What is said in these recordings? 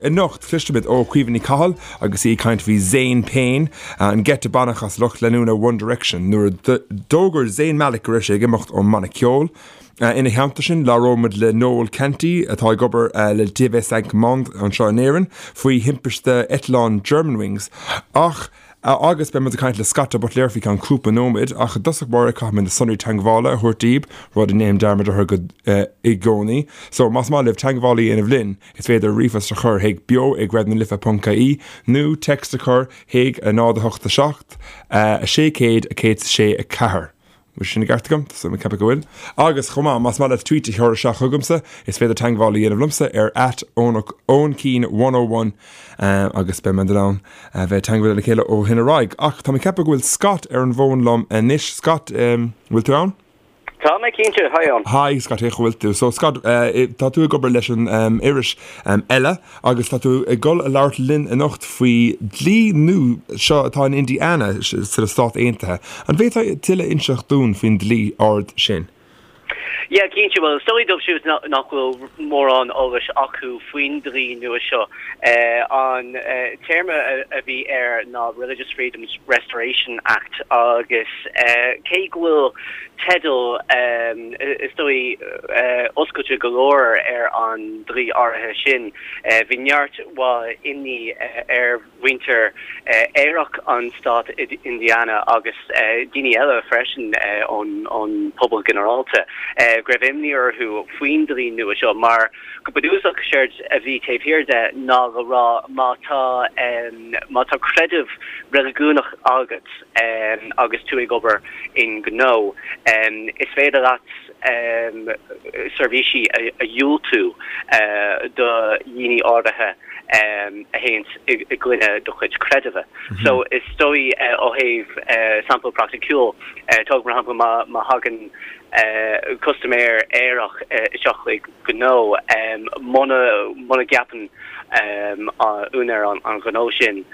Anocht, cloisfimid ó Chaoimhe Ní Chathail agus í ag caint faoi Zayn Payne, an geit a baineadh as lucht leanúna One Direction nuair a d'fhógair Zayn Malik go raibh sé ag imeacht ón mbanna ceoil. Ina theannta sin, labhróimid le Noel Canty, atá ag obair le TV5 Monde anseo in Éirinn, faoi thimpiste eitleáin Germanwings. Ach agus beidh muid ag caint le Scott de Buitléar faoi cheann cúpla nóiméad, ach i dtosach báire caithfidh mé na sonraí teagmhála a thabhairt daoibh, rud a ndéanaim dearmad orthu go i gcónaí. So, más maith libh teagmháil a dhéanamh linn, is féidir ríomhphost a chur chuig beo ag raidionalife.ie nó text a chur chuig 0 8 7 600 106 4. Bhfuil sin i gceart agam? Tá mé ag ceapadh go bhfuil. Agus chomh maith, más maith leat tweet a chur isteach chugamsa, is féidir teagmháil a dhéanamh liomsa ar at Eoin 101 agus beidh muid in ann a bheith ag teagmháil le chéile ó shin ar aghaidh. Ach tá mé ag ceapadh go bhfuil Scott ar an bhfón liom anois. Scott, bhfuil tú ann? Tá mé cinnte, hi Eoin. Hi Scott, cén chaoi a bhfuil tú? So Scott, tá tú ag obair leis an iris Elle agus tá tú ag dul a labhairt linn anocht faoi dlí nua seo atá in Indiana sna Stáit Aontaithe. An bhféadfá tuilleadh a inseacht dúinn faoin dlí áirid sin? Yeah, cinnte. Bhuel, is dóigh dóibh siúd nach bhfuil mórán eolais acu faoin dlí nua seo, an téarma a bhí air ná Religious Freedoms Restoration Act agus cé go bhfuil teideal, is dóigh, oscailte go leor ar an dlí áirithe sin. Bhí neart mhaith imní ar mhuintir aerach an stát Indiana agus daoine eile freisin ón pobal ginearálta go raibh imní orthu faoin dlí nua seo mar go bunúsach séard a bhí taobh thiar de ná le rá má tá má tá creideamh reiligiúnach agat agus tú ag obair i ngnó, is féidir leat seirbhísí a dhiúltú do dhaoine áirithe a théanns i gcoinne do chuid creidimhe. So is dóigh ó thaobh sampla praiticiúil, tóg mar shampla má thagann custaiméir aerach isteach chuig gnó, muna gceapann úinéir an ghnó sin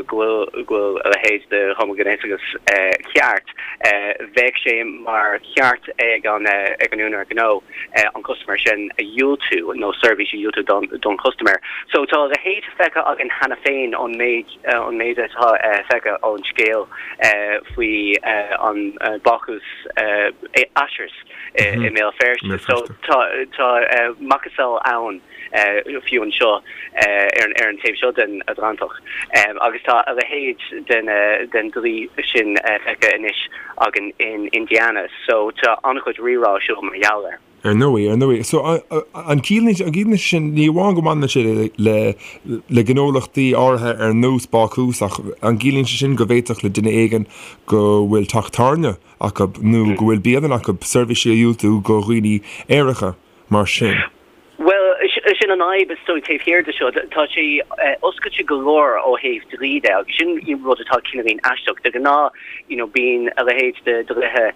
go bhfuil go bhfuil a leithéid de homaighnéasachas ceart, bheadh sé mar cheart ag an ag an úinéir gnó an custaiméir sin a dhiúltú nó seirbhís a dhiúltú don don chustaiméir. So tá a leithéid feicthe againn cheana féin ón méid ón méid atá feicthe ón scéal faoi an bácús Ashers i mBéal Feirste. So tá tá macasamhail ann. fiú anseo ar an taobh seo den Atlantach. Agus tá a leithéid den dlí sin feicthe anois againn in Indiana, so tá an-chuid rírá ar siúl mar gheall air. Ar ndóigh, ar ndóigh. So, an gciallaíonn sé sin, ní amháin go mbaineann sé le le gnólachtaí áirithe ar nós bácús, ach an gciallaíonn sé sin go bhféadfadh le duine éigin go bhfuil teach tábhairne acu nó go bhfuil bialann acu seirbhísí a dhiúltú go dhaoine aeracha mar sin? Bhuel, sin an fhadhb is dóigh taobh thiar de seo. Tá sé oscailte go leor ó thaobh dlí de agus sin rud atá cineáilín aisteach. De ghnáth, you know, bíonn a leithéid de dhlíthe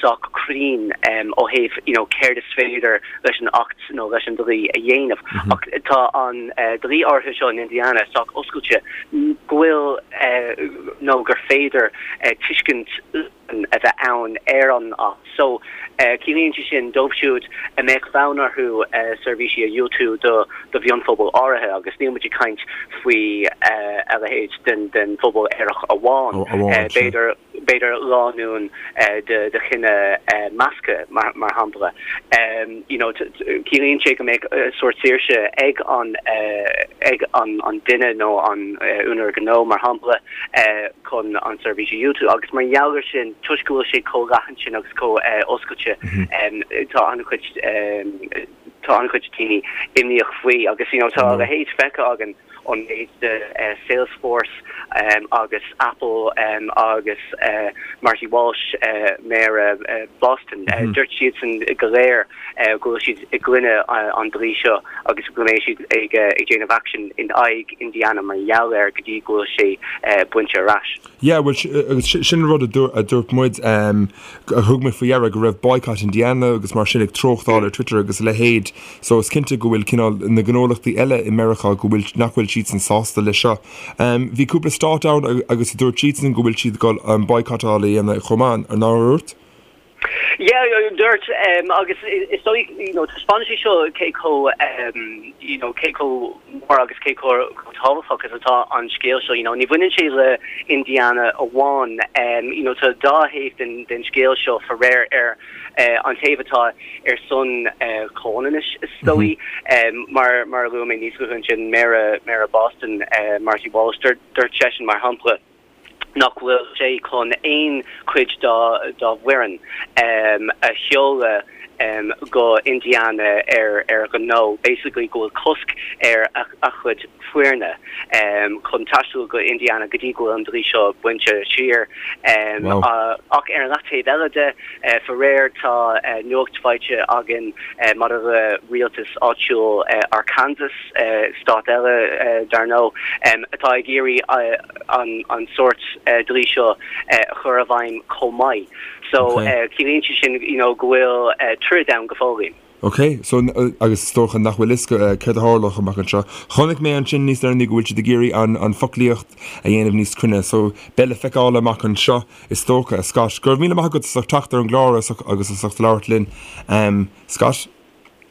sách cruinn ó thaobh, you know, céard is féidir leis an Acht nó leis an dlí a dhéanamh. Ach tá an dlí áirithe seo in Indiana sách oscailte go bhfuil nó gur féidir tuiscint a bheith ann ar an Acht so. Ciallaíonn sé sin dóibh siúd a mbeadh fonn orthu seirbhísí a dhiúltú do mhionphobal áirithe, agus níl muid ag caint faoi a leithéid den phobal aerach amháin, b'fhéidir b'fhéidir lánúin de chine measctha, mar shampla. You know, ciallaíonn sé go mbeadh sórt saoirse ag an ag an duine nó an úinéir gnó, mar shampla, chun an seirbhís a dhiúltú agus mar gheall ar sin, toisc go bhfuil sé chomh leathan sin agus chomh oscailte, tá an-chuid tá an-chuid daoine imníoch faoi agus you know tá a leithéid feicthe againn ón méid de Salesforce agus Apple agus Marty Walsh, Méara Boston, dúirt siadsan go léir go bhfuil siad i gcoinne an dlí seo agus go mbeidh siad ag déanamh aicsin in aghaidh Indiana mar gheall air go dtí go bhfuil sé bainte ar ais. Yeah, bhuel, agus sin an rud a dúirt muid, a thug mé faoi deara go raibh Boycott Indiana agus mar sin ag treochtáil ar Twitter agus a leithéid, so is cinnte go bhfuil cineál na gnólachtaí eile i Meiriceá go bhfuil, nach bhfuil siadsan sásta leis seo. Bhí cúpla stát ann agus a dúirt siadsan go bhfuil siad ag dul an boycottáil a dhéanamh chomh maith, nár dhúirt? Yeah, dúirt, agus is dóigh, you know, taispeánann sé seo cé chomh, you know, cé chomh mór agus cé chomh tábhachtach is atá an scéal seo, you know, ní bhaineann sé le Indiana amháin, you know, tá dá thaobh den, den scéal seo faraor ar an taobh atá ar son comhionannais is dóigh, mar, mar a luaigh mé níos luaithe ansin, Méara, Méara Boston, Marty Walsh, dúirt seisean mar shampla, nach bhfuil sé chun aon chuid dá bhfoireann a sheoladh go Indiana ar ar ghnó, basically go bhfuil cosc ar a chuid foirne chun taisteal go Indiana go dtí go bhfuil an dlí seo bainte siar. Ach ar an leath-taobh eile de, faraor tá nuacht faighte againn maidir le rialtas áitiúil Arkansas, stát eile dar ndóigh, atá ag iarraidh an sórt dlí seo a chur i bhfeidhm chomh maith. So ciallaíonn sé sin you know go bhfuil troid ann go fóill. Ok, so agus is dócha nach bhfuil fhios céard a tharlódh amach anseo. Chonaic mé ansin níos deireanaí go bhfuil siad ag iarraidh an foclaíocht a dhéanamh níos cruinne, so beidh le feiceáil amach anseo is dócha. Scott, go raibh míle maith agat as ucht teacht ar an gclár agus as ucht labhairt linn. Scott?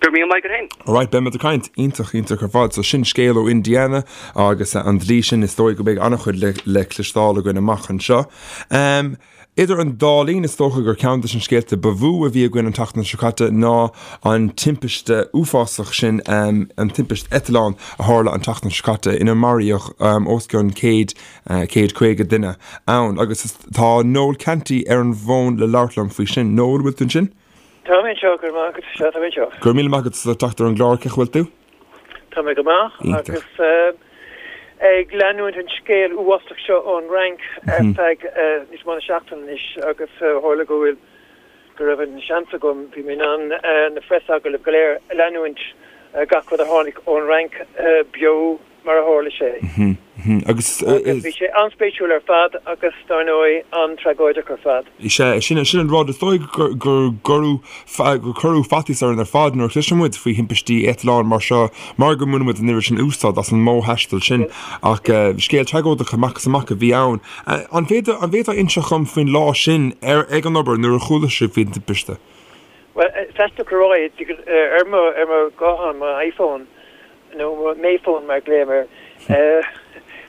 Go raibh míle maith agat féin. Alright, beidh muid ag caint. Iontach, iontach ar fad. So sin scéal ó Indiana agus an dlí sin, is dóigh go mbeidh an-chuid le, le cloisteáil againn amach anseo. Um, idir an dá linn, is dócha gur ceann de na scéalta ba mhó a bhí againn an tseachtain seo caite ná an timpiste uafásach sin, um, an timpiste eitleáin a tharla an tseachtain seo caite ina maraíodh um, os cionn 100, uh, 150 duine ann. Agus tá Noel Canty ar an bhfón le labhairt liom faoi sin. Noel, bhfuil tú ansin? Tá mé anseo, go raibh maith agat, sea, tá mé anseo. Go raibh míle maith agat as teacht ar an gclár, cén chaoi a bhfuil tú? Tá mé go maith agus ag leanúint an scéal uafásach seo ón Fhrainc ar feadh níos mó ná seachtain anois agus tharla go bhfuil, go raibh an seans agam, bhí mé in ann na phreasagallaimh go léir a leanúint, gach rud a tháinig ón Fhrainc beo mar a tharla sé. Agus bhí sé an-spéisiúil ar fad agus, dar ndóigh, an-tragóideach ar fad. Sea, sin sin an rud. Is dóigh gur gur gur cuireadh faitíos orainn ar fad nuair a chloiseann muid faoi thimpistí eitleáin mar seo mar go mbaineann muid an oiread sin úsáid as an modh taistil sin. Ach scéal tragóideach amach is amach a bhí ann. An bhféadfá an bhféadfá inseacht dhom faoin lá sin ar ag an obair nuair a chuala sibh faoin timpiste? Bhuel, is aisteach a rá é, ar mo ar mo ghuthán, mo iPhone, nó mo Mayphone mar a ghlaoim air,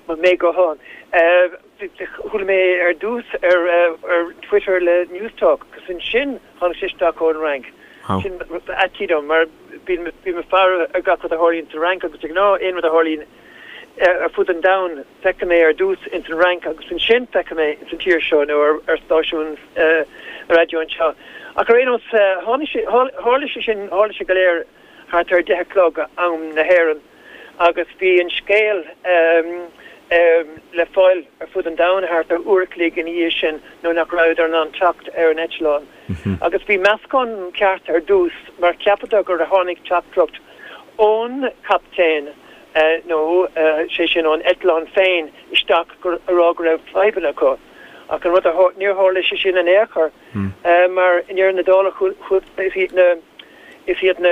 mo May-ghuthán. Chuala mé ar dtús ar Twitter le Newstalk agus ansin tháinig sé isteach ón Fhrainc. Sin faitíos dom mar bím ag faire ar gach rud a tharlaíonn sa Fhrainc agus de ghnáth aon rud a tharlaíonn ar fud an domhain feicim é ar dtús ins an Fhrainc agus ansin feicim é ins an tír seo nó ar stáisiún raidió anseo. Ach ar aon nós tháinig sé, tharla sé sin, tharla sé go léir thart ar 10 a chlog am na hÉireann agus bhí an scéal le fáil ar fud an domhain thart ar uair a chloig ina dhiaidh sin nuair nach rabhadar in ann teacht ar an eitleán. Agus bhí meascán ceart ar dtús mar cheapadar gur tháinig teachtaireacht ón chaptaen nó sé sin ón eitleán féin isteach ag rá go raibh fadhbanna acu. Ach an rud a níor tharla sé sin in aon chor mar i ndeireadh na dála is iad na Is iad na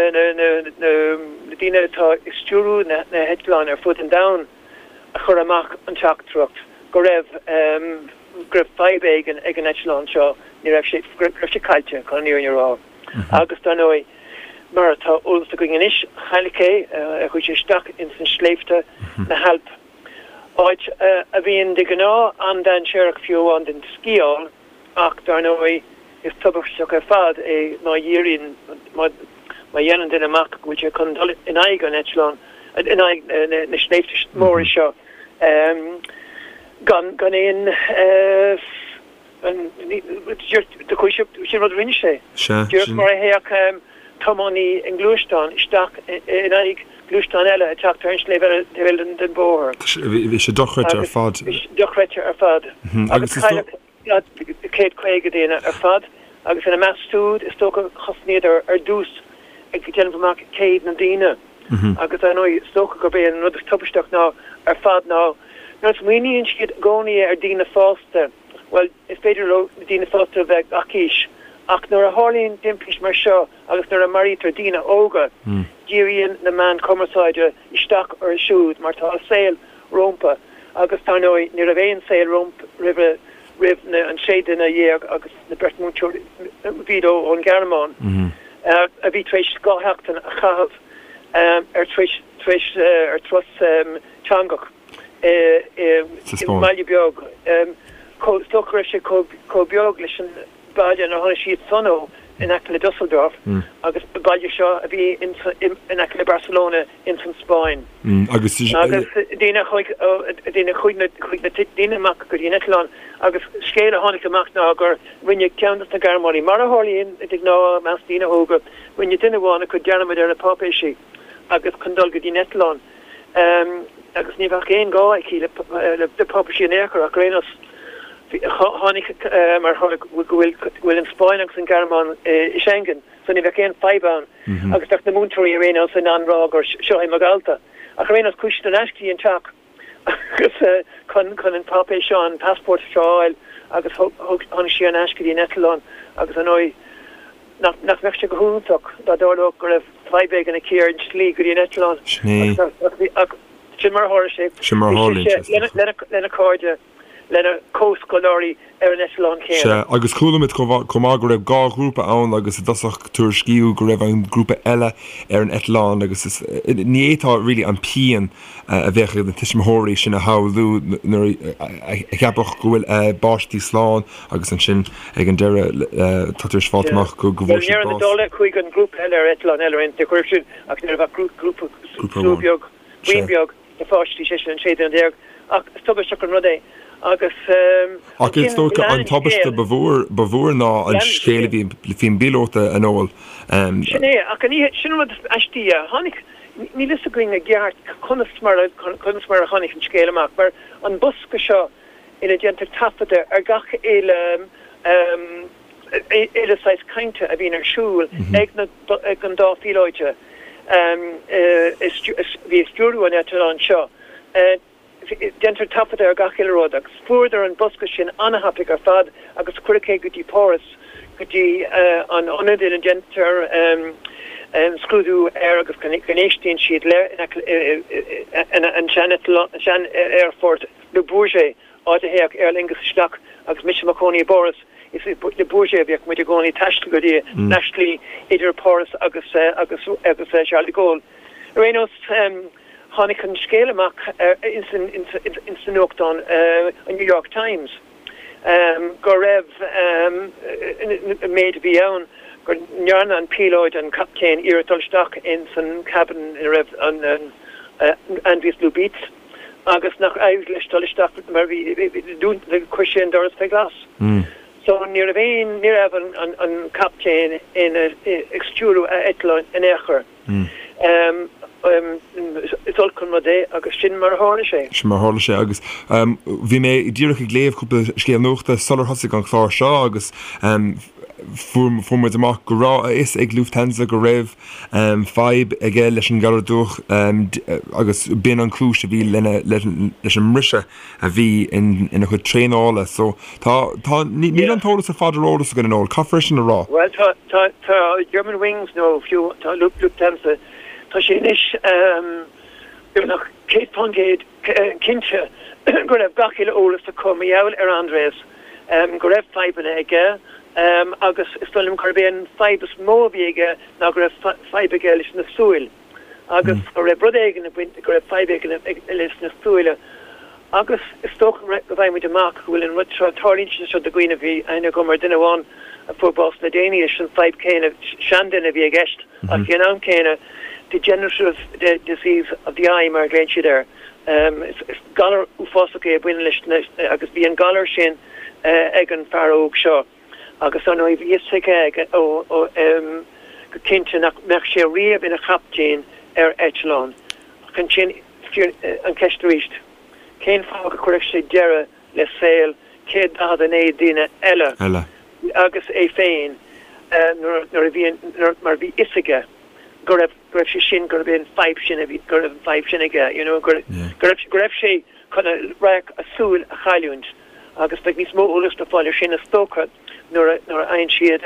daoine atá ag stiúrú na heitleáin ar fud an domhain a chuir amach an teachtaireacht go raibh go raibh fadhb éigin ag an eitleán seo, ní raibh sé, go raibh sé caillte, chun an fhírinne a rá. Agus dar ndóigh, mar atá eolas againn anois, cailleadh é, chuaigh sé isteach ins na sléibhte, na hAilp, áit a bhíonn de ghnáth an-dainséarach fiú amháin don sciáil. Ach, dar ndóigh, is tubaisteach ar fad é má dhíríonn, má dhéanann duine amach go bhfuil sé chun dul in aghaidh an eitleáin, in aghaidh na sléibhte móra seo, gan, gan aon, sin rud a rinne sé. Díreach mar a théadh tiománaí i ngluaisteán isteach in aghaidh gluaisteán eile ag teacht ar an sléibh eile, taobh eile den bhóthar. Bhí sé dochreidte ar fad. Dochreidte ar fad. Agus cailleadh 150 duine ar fad agus ina measc siúd, is dócha, thosnaíodar ar dtús ag déanamh amach cé hiad na daoine agus ar ndóigh is dócha gurb é an rud is tubaisteach ná ar fad ná nuair a smaoiníonn siad i gcónaí ar daoine fásta, bhuel, is féidir leo na daoine fásta a bheith gach aois ach nuair a tharlaíonn timpist mar seo agus nuair a maraítear daoine óga, díríonn na meáin chumarsáide isteach orthu siúd mar tá a saol rómpa agus dar ndóigh ní raibh aon saol roimhe. roimh na an 16 duine agus na beirt múinteoirí bhíod ón Ghearmáin a bhí tar éis 2 sheachtain a chaitheamh ar tar éis tar éis ar turas teangach i i mbaile beag chomh is dócha go raibh sé chomh beag leis an baile inar tháinig siad san ó in aice le Dusseldorf agus an baile seo a bhí in aice le Barcelona ins an Spáinn. Agus daoine a chuaigh daoine chuaigh na chuaigh na daoine amach go dtí an eitleán agus scéal a tháinig amach ná gur rinne ceann dos na Gearmánaigh, mar a tharlaíonn de ghnáth i measc daoine óga, rinne duine amháin acu dearmad ar a páipéisí agus chun dul go dtí an eitleán agus ní bheadh aon ghá aici le páipéisí in aon chor ach ar aon nós tháinig mar go bhfuil go bhfuil an Spáinn agus an Ghearmáin i Schengen so ní bheadh aon fadhb ann agus bheadh na múinteoirí ar aon nós in ann rá gur seo é mo dhalta. Ach ar aon nós chuaigh siad ar ais go dtí an teach agus chun chun an páipéar seo an passport seo a fháil agus thug tháinig sí ar ais go dtí an eitleán agus ar ndóigh nach nach mbeadh sé go hiontach dá dtarlódh go raibh fadhb éigin aici ar an tslí go dtí an eitleán agus ach sin mar a tharla sé. Sin mar a tharlaíonn sé. Lena lena cairde. lena comhscoláirí ar an eitleán céanna. Sea, agus chuala muid chomh maith go raibh 2 ghrúpa ann agus i dtosach tuairiscíodh go raibh an grúpa eile ar an eitleán agus is, ní fhéadfá really an pian a bheadh ag na tuismitheoirí sin a shamhlú nuair a cheapfadh go bhfuil a bpáistí slán agus ansin ag an deireadh tá tar éis fáilt amach go bhfuair siad bás. Bhuel, i ndeireadh na dála chuaigh an grúpa eile ar eitleán eile ar aon chaoi sin ach ní raibh ach grúpa, slua beag, buíon beag. de pháistí, sé sin an 16 duine, ach is tubaisteach an rud é agus Ach is dócha an tubaiste ba mhór, ba mhór ná an scéal a bhí faoin bpíolóta, a Noel. Sin é, ach an oíche, sin an rud is aistí, a tháinig, níl fhios againn i gceart conas mar a, conas mar a tháinig an scéal amach, mar an bosca seo ina déantar taifeadadh ar gach uile, uile saghas cainte a bhíonn ar siúl ag na, ag an dá phíolóide a bhí ag stiúrú an eitleáin seo. Déantar taifeadadh ar gach uile rud agus fuaireadar an bosca sin an-thapaidh ar fad agus cuireadh é go dtí Páras, go dtí an ionad ina ndéantar scrúdú air agus go n-éistíonn siad le an sean-aerfort Le Bourget. áit a théadh Aer Lingus isteach agus mise i mo chónaí i bPáras, is i Le Bourget a bhíodh muid i gcónaí ag taisteal go dtí na slí idir Páras agus agus agus Charles de Gaulle. Ar aon nós, tháinig an scéal amach ins an ins an nuachtán, an New York Times, go raibh an méid a bhí ann, go ndearna an píolóid, an captaen, iarracht dul isteach ins an cabin ina raibh an Andreas Lubitz, agus nach éirigh leis dul isteach mar bhí chuir sé an doras fé ghlas. So ní raibh aon ní raibh an an an captaen ina ag stiúrú a eitleáin in aon chor. Is olc an rud é agus sin mar a tharla sé. Sin mar a tharla sé agus bhí mé díreach ag léamh cúpla scéal nuachta sular thosaigh an clár seo agus fuair fuair muid amach go raibh a fhios ag Lufthansa go raibh fadhb aige leis an galar dubhach agus b'in an chúis a bhí lena leis an mbriseadh a bhí ina chuid traenála. So tá, tá, níl an t-eolas ar fad ar eolas againn a Noel, caithfear é sin a rá. Bhuel tá, tá, tá Germanwings nó fiú tá Lufthansa, tá sé anois beagnach 100% cinnte go raibh gach uile eolas acu mar gheall ar Andreas, go raibh fadhbanna aige agus is dóigh liom gurb é an fadhb is mó a bhí aige ná go raibh fadhb aige leis na súil agus go raibh rud éigin ag baint, go raibh fadhb éigin leis na súile agus is dócha go bhfaighidh muid amach go bhfuil an rud seo, tarlaíonn sé seo do dhaoine, bhí aithne agam ar dhuine amháin a fuair bás le déanaí leis an fadhb céanna, seanduine a bhí i gceist ach ag an am céanna degenerative disease of the eye mar a ghlaonn siad air. Is galar uafásach é a bhaineann leis na, agus bhí an galar sin ag an fear óg seo agus ar ndóigh bhí fhios aige ó go cinnte nach mbeadh sé riamh ina chaptaen ar eitleán. Ach ansin an cheist arís, cén fáth go gcuirfeadh sé deireadh le saol 149 duine eile agus é féin nuair a bhí mar bhí fhios aige go raibh go raibh sé sin, gurb é an fadhb sin a bhí, go raibh an fadhb sin aige, you know, go raibh, go raibh sé chun a radharc, a súil a chailliúint agus beidh níos mó eolais le fáil ar sin is dócha nuair a, nuair a fhaigheann siad,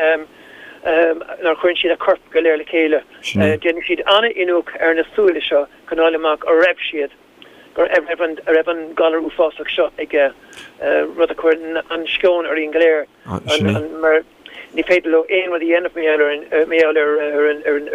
nuair a chuireann siad a corp go léir le chéile. Déanfaidh siad an-iniúchadh ar na súile seo chun fháil amach an raibh siad. Go raibh an a raibh an galar uafásach seo aige, rud a chuir an-sceon orainn go léir, mar ní féidir leo aon rud a dhéanamh mar gheall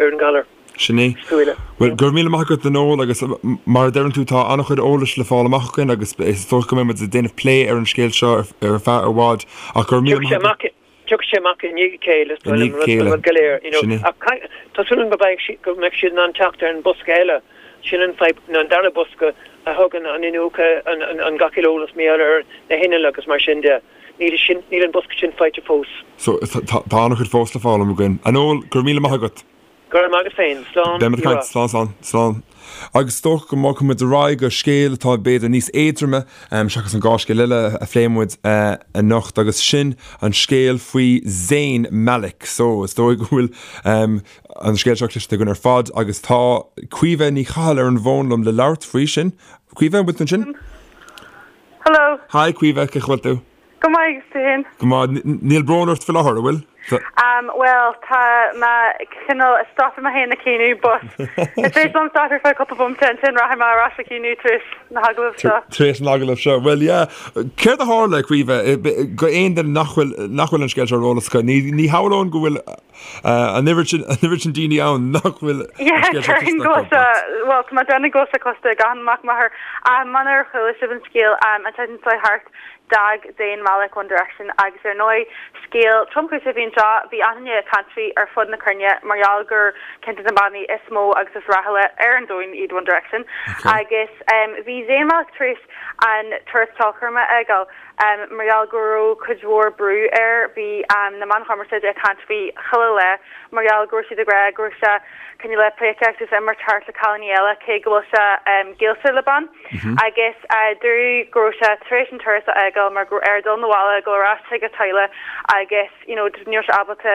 ar an galar. Sin é. Bhuel, go raibh míle maith agat a Noel agus mar a deireann tú tá an-chuid eolais le fáil amach againn agus is dócha go mbeidh muid ag déanamh plé ar an scéal seo ar feadh i bhfad ach go raibh míle maith agat. Tiocfaidh sé amach i ndiaidh a chéile, is dóigh liom, an rud go léir, you know. Ach tá súil agam go mbeidh siad, go mbeidh siad in ann teacht ar an bosca eile, sin an fadhb, nó an dara bosca a thugann an iniúchadh, an, an, an gach uile eolas mar gheall ar na hinnill agus mar sin de. Níl sin, níl an bosca sin faighte fós. So, tá, tá an-chuid fós le foghlaim againn. A Noel, go raibh míle maith agat. Go raibh maith agat féin. Slán. Beidh muid ag caint. Slán, slán, slán. Agus is dócha go mbogfaidh muid ar aghaidh go scéal atá b'fhéidir níos éadroime seachas an dá scéal eile a phléigh muid anocht agus sin an scéal faoi Zayn Malik. So, is dóigh go bhfuil an scéal seo cloiste againn ar fad agus tá Caoimhe Ní Chathail ar an bhfón liom le labhairt faoi sin. Caoimhe, an bhfuil tú ansin? Hello. Hi Caoimhe, cén chaoi a bhfuil tú? Go maith, agus tú féin? Go maith. Níl brón ort faoi láthair, an bhfuil? Bhuel, tá mé cineál ag stopadh mé féin ag caoineadh, but is féidir liom stop ar feadh cúpla bomaite, ansin rachaidh mé ar ais ag caoineadh tar éis na hagallamh seo. Tar éis an agallaimh seo. Bhuel, yeah. Céard a tharla, Caoimhe, go aon duine nach bhfuil, nach bhfuil an scéal seo ar eolas acu? Ní, ní shamhlóinn go bhfuil an oiread sin, an oiread sin daoine ann nach bhfuil an Yeah, scéal seo déarfainn cloiste go acu, bhfuil sé, but. bhuel, tá mé ag déanamh go bhfuil sé cloiste ag achan mac máthar. Munar chuala sibh an scéal, an tseachtain seo thart, D'fhág Zayn Malik One Direction agus ar ndóigh scéal tromchúiseach a bhí anseo, bhí achan duine ag caint faoi ar fud na cruinne mar gheall gur ceann de na bannaí is mó agus is rathúla ar an domhan iad One Direction agus bhí Zayn Malik tar éis an turas ceolchoirme a fhágáil mar gheall go raibh cuid mhór brú air, bhí na meáin chumarsáide ag caint faoi chuile lá mar gheall go raibh siad ag rá go raibh sé cineál ag pleidhcíocht agus imirt thart le cailíní eile cé go bhfuil sé gaolta le bean. Agus dúradh go raibh sé tar éis an turas a fhágáil mar go raibh air dul 'na bhaile, dul ar ais chuig a teaghlach agus you know ní raibh sé ábalta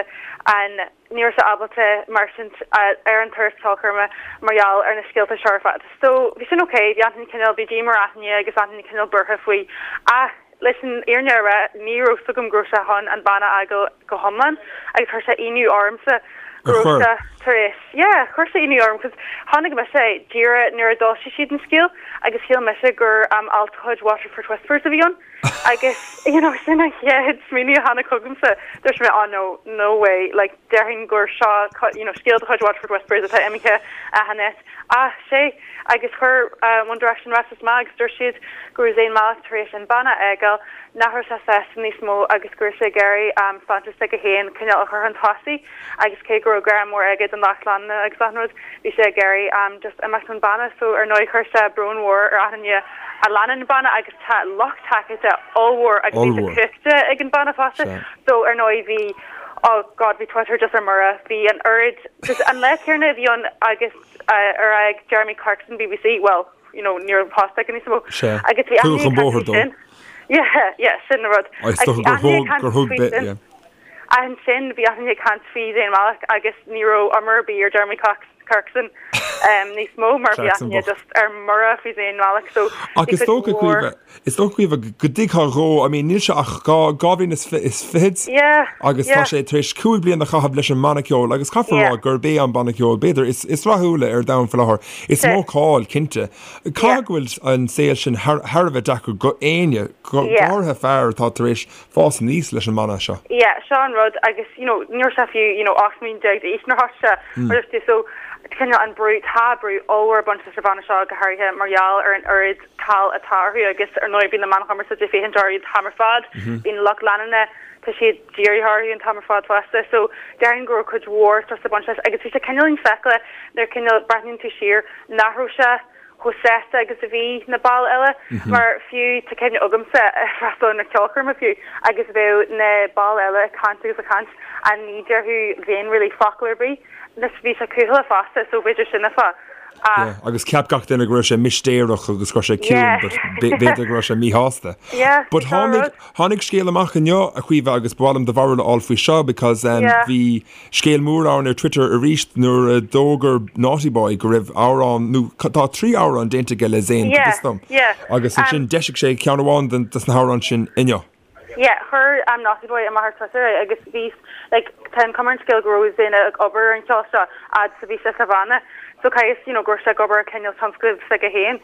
an, ní raibh sé ábalta mairstint ar an turas ceolchoirme mar gheall ar na scéalta seo ar fad. So bhí sin ok, bhí achan duine cineál, bhí díoma ar achan duine agus achan duine cineál buartha faoi ach leis an fhírinne a rá ní raibh 's agam go raibh sé chun an banna a fhágáil go hiomlán agus chuir sé ionadh ormsa go raibh sé tar éis, yeah, chuir sé ionadh orm cos chonaic mise é díreach nuair a d'fhoilsigh siad an scéal agus shíl mise gur um, alt de chuid Waterford Whispers a bhí ann agus you know, sin an chéad smaoineamh a tháinig chugamsa dúirt mé oh no, no way, like déarfainn gur seo you know, scéal de chuid Waterford Whispers atá imithe as an net ach sé agus chuir One Direction ráiteas amach agus dúirt siad go raibh Zayn Malik tar éis an banna a fhágáil, nach raibh sé sásta níos mó agus go raibh sé ag iarraidh sláinte s'aige féin cineál a chur chun tosaigh agus cé go raibh grá mór aige don lucht leanúna agus achan rud, bhí sé ag iarraidh just imeacht ón banna so ar ndóigh chuir sé brón mhór ar achan duine a leanann an banna agus tá lucht tacaíochta ollmhór agus bhí sé cumhachtach ag an banna fosta so ar ndóigh bhí oh god bhí Twitter just ar mire, bhí an oiread just an lá céanna a bhí ann agus ar fhág Jeremy Clarkson BBC, well, you know, ní raibh post aige níos mó. Sea. Agus bhí Tugadh achan chun duine ag caint bóthair faoi dó. sin. Yeah, yeah, sin an rud. Is Agus dócha bhí gur achan duine ag thug, caint gur thug faoi bit, sin. yeah. Ansin bhí achan duine ag caint faoi Zayn Malik agus ní raibh iomrá ar bith ar Jeremy Cox, Clarkson níos mó mar bhí Clarkson achan duine bocht. just ar mire faoi Zayn Malik so Ach bhí is cuid dócha, mhór Caoimhe, Is dócha Caoimhe go dtuigfeá dhó, I mean níl sé ach 2 bhliain is fichead Yeah, agus tá yeah. sé tar éis 5 bliana a chaitheamh leis an mbanna ceoil agus caithfear a Yeah. rá gurb é an banna ceoil b'fhéidir is is rathúla ar domhan faoi láthair. Is Sea. mó cáil, cinnte. Yeah. Caithfidh go bhfuil an saol sin thar thar a bheith deacair go éinne, go go Yeah. háirithe fear atá tar éis fás aníos leis an mbanna seo. Yeah, seo an rud agus you know ní raibh sé fiú you know 18 mbliana d'aois nuair a thosaigh sé mar dúirt tú so cineál an brú, tá brú ollmhór ag baint leis an bhanna seo go háirithe mar gheall ar an oiread cáil atá orthu agus ar ndóigh bíonn na meáin chumarsáide ag féachaint orthu an t-am ar fad, bíonn lucht leanúna, tá siad dírithe orthu an t-am ar fad fosta so déarfainn go raibh cuid mhór strus ag baint leis agus bhí sé cineál infheicthe nuair cineál breathnaíonn tú siar nach raibh sé chomh sásta agus a bhí na baill eile mar fiú tá cuimhne agamsa ag freastal ar na ceolchoirme fiú agus bheadh na baill eile ag caint agus ag caint and ní déarfadh Zayn really focal ar bith. Anois bhí sé cúthaileach fosta so b'fhéidir sin an fáth. Ach. Yeah, agus cheap gach duine go raibh sé mistéireach agus go raibh sé ciúin Yeah. but b'fhéidir go raibh sé míshásta. Yeah, But sin an tháinig, rud. tháinig scéal amach inniu, a Chaoimhe, agus ba mhaith liom do bharúil a fháil faoi seo because um, Yeah. bhí scéal mór ann ar Twitter arís nuair a d'fhógair Naughty Boy go raibh amhrán, nó tá 3 amhrán déanta aige le Zayn, go Yeah, bhfios dom. yeah. Agus Um, ansin d'eisigh sé ceann amháin den, des na hamhráin sin inniu. Yeah, chuir um Naughty Boy amach ar Twitter é agus bhí like tá an cuma ar an scéal go raibh Zayn ag obair ar an cheol seo fhad is a bhí sé sa bhanna. So caithfidh you know go raibh sé ag obair ar cineál tionscnamh s'aige féin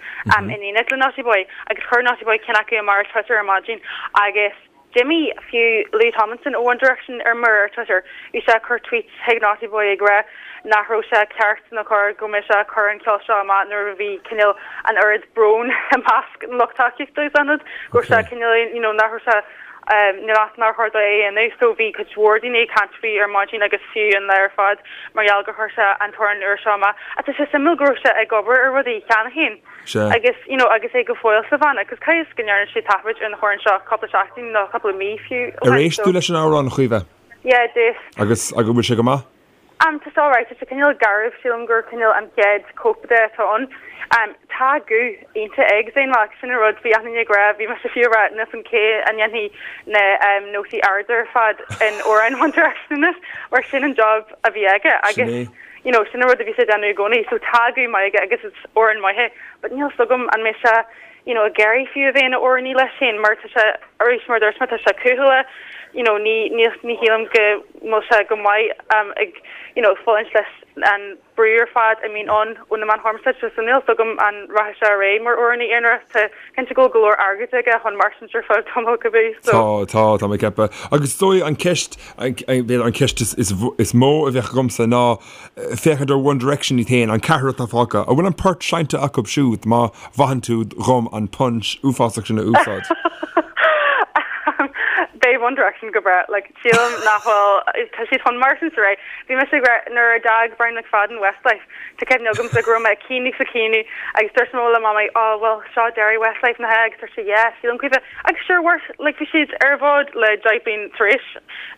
in éineacht le Naughty Boy agus chuir Naughty Boy ceann acu amach ar Twitter ar maidin agus d'imigh fiú Louis Tomlinson ó One Direction ar mire ar Twitter. Bhí sé ag cur tweets chuig Naughty Boy ag rá nach raibh sé ceart nó cóir go mbeadh sé ag cur an ceol seo amach nuair a bhí cineál an oiread brón i measc an lucht tacaíochta agus an rud go raibh sé cineál you know nach raibh sé níl nár chóir dó é a dhéanamh so bhí cuid mhór daoine ag caint faoi ar maidin agus fiú an lá ar fad mar gheall gur chuir sé an t-amhrán úr seo amach. Ach tá sé suimiúil go raibh sé ag obair ar rudaí cheana féin agus you know agus é go fóill sa bhanna agus caithfidh is go ndearna sé taifead ar an amhrán seo cúpla seachtain nó cúpla mí fiú ó Ar shin éist tú leis an amhrán, a Chaoimhe? Yeah, d'éist. Agus agus bhfuil sé go maith? Tá sé alright, tá sé cineál garbh, sílim gur cineál an chéad cóip de atá ann. Tá guth iontach ag Zayn Malik, sin an rud, bhí achan duine ag rá, bhí mise fiú ag rá, níl 's agam cé a ndéanfaidh na nótaí arda ar fad in amhráin One Direction anois, mar sin an job a bhí aige agus you know sin an rud a bhí sé ag déanamh i gcónaí, so tá guth maith aige agus is amhráin maith é, but níl 's agam an mbeidh sé you know, ag iarraidh fiú a bheith ina amhránaí leis féin mar tá sé, arís mar a dúirt mé, tá sé cúthaileach, you know, ní, ní, ní shílim go bhfuil sé go maith um, ag, you know, ag fulaingt leis an brú ar fad a mbíonn ann ó na meáin chumarsáide, so níl 's agam an rachaidh sé ar aghaidh mar amhránaí aonair, tá cinnte go bhfuil go leor airgid aige chun mairstin ar feadh tamaill cibé, so. Tá, tá, tá mé ag ceapadh. Agus is dóigh an ceist, b'fhéidir an ceist is, is, is mó a bheadh agamsa ná, féachaint ar One Direction iad féin, an ceathrar atá fágtha, an bhfuil an port seinnte acu siúd má mhaitheann tú dhom an pun uafásach sin a úsáid? Beidh One Direction go breá, like, sílim nach bhfuil, tá siad chun mairstin ar aghaidh. Bhí mise ag rá nuair a d'fhág Brian McFadden Westlife, tá cuimhne agamsa go raibh mé ag caoineadh is ag caoineadh agus dúirt mé le Mamaí, oh well seo deireadh Westlife nach ea agus dúirt sí yeah, sílim Caoimhe agus sure worth, like bhí siad ar an bhfód le 10 bliain tar éis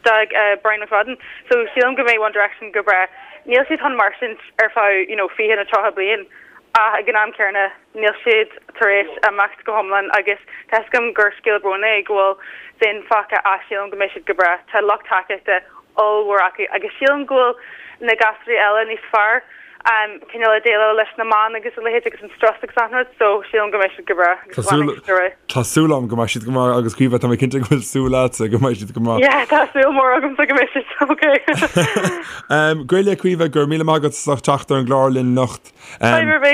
d'fhág Brian McFadden. So sílim go mbeidh One Direction go breá. Níl siad chun mairstin ar feadh you know 20 nó 30 bliain ach ag an am céanna níl siad tar éis imeacht go hiomlán agus tá 'fhios agam gur scéal bróin é go bhfuil Zayn fágtha ach sílim go mbeidh siad go breá. Tá lucht tacaíochta ollmhór acu agus sílim go bhfuil na gasúraí eile níos fearr cineál ag déileáil leis na meáin agus a leithéid agus an strus agus achan rud so sílim go mbeidh siad go breá agus fanfaidh siad ar aghaidh. Tá súil agam go mbeidh siad go maith agus Caoimhe tá mé cinnte go bhfuil súil agatsa go mbeidh siad go maith. Yeah tá súil mhór agamsa go mbeidh siad ok. Gaeilge Caoimhe, go raibh míle maith agat as ucht teacht ar an gclár linn anocht. Fadhb ar bith.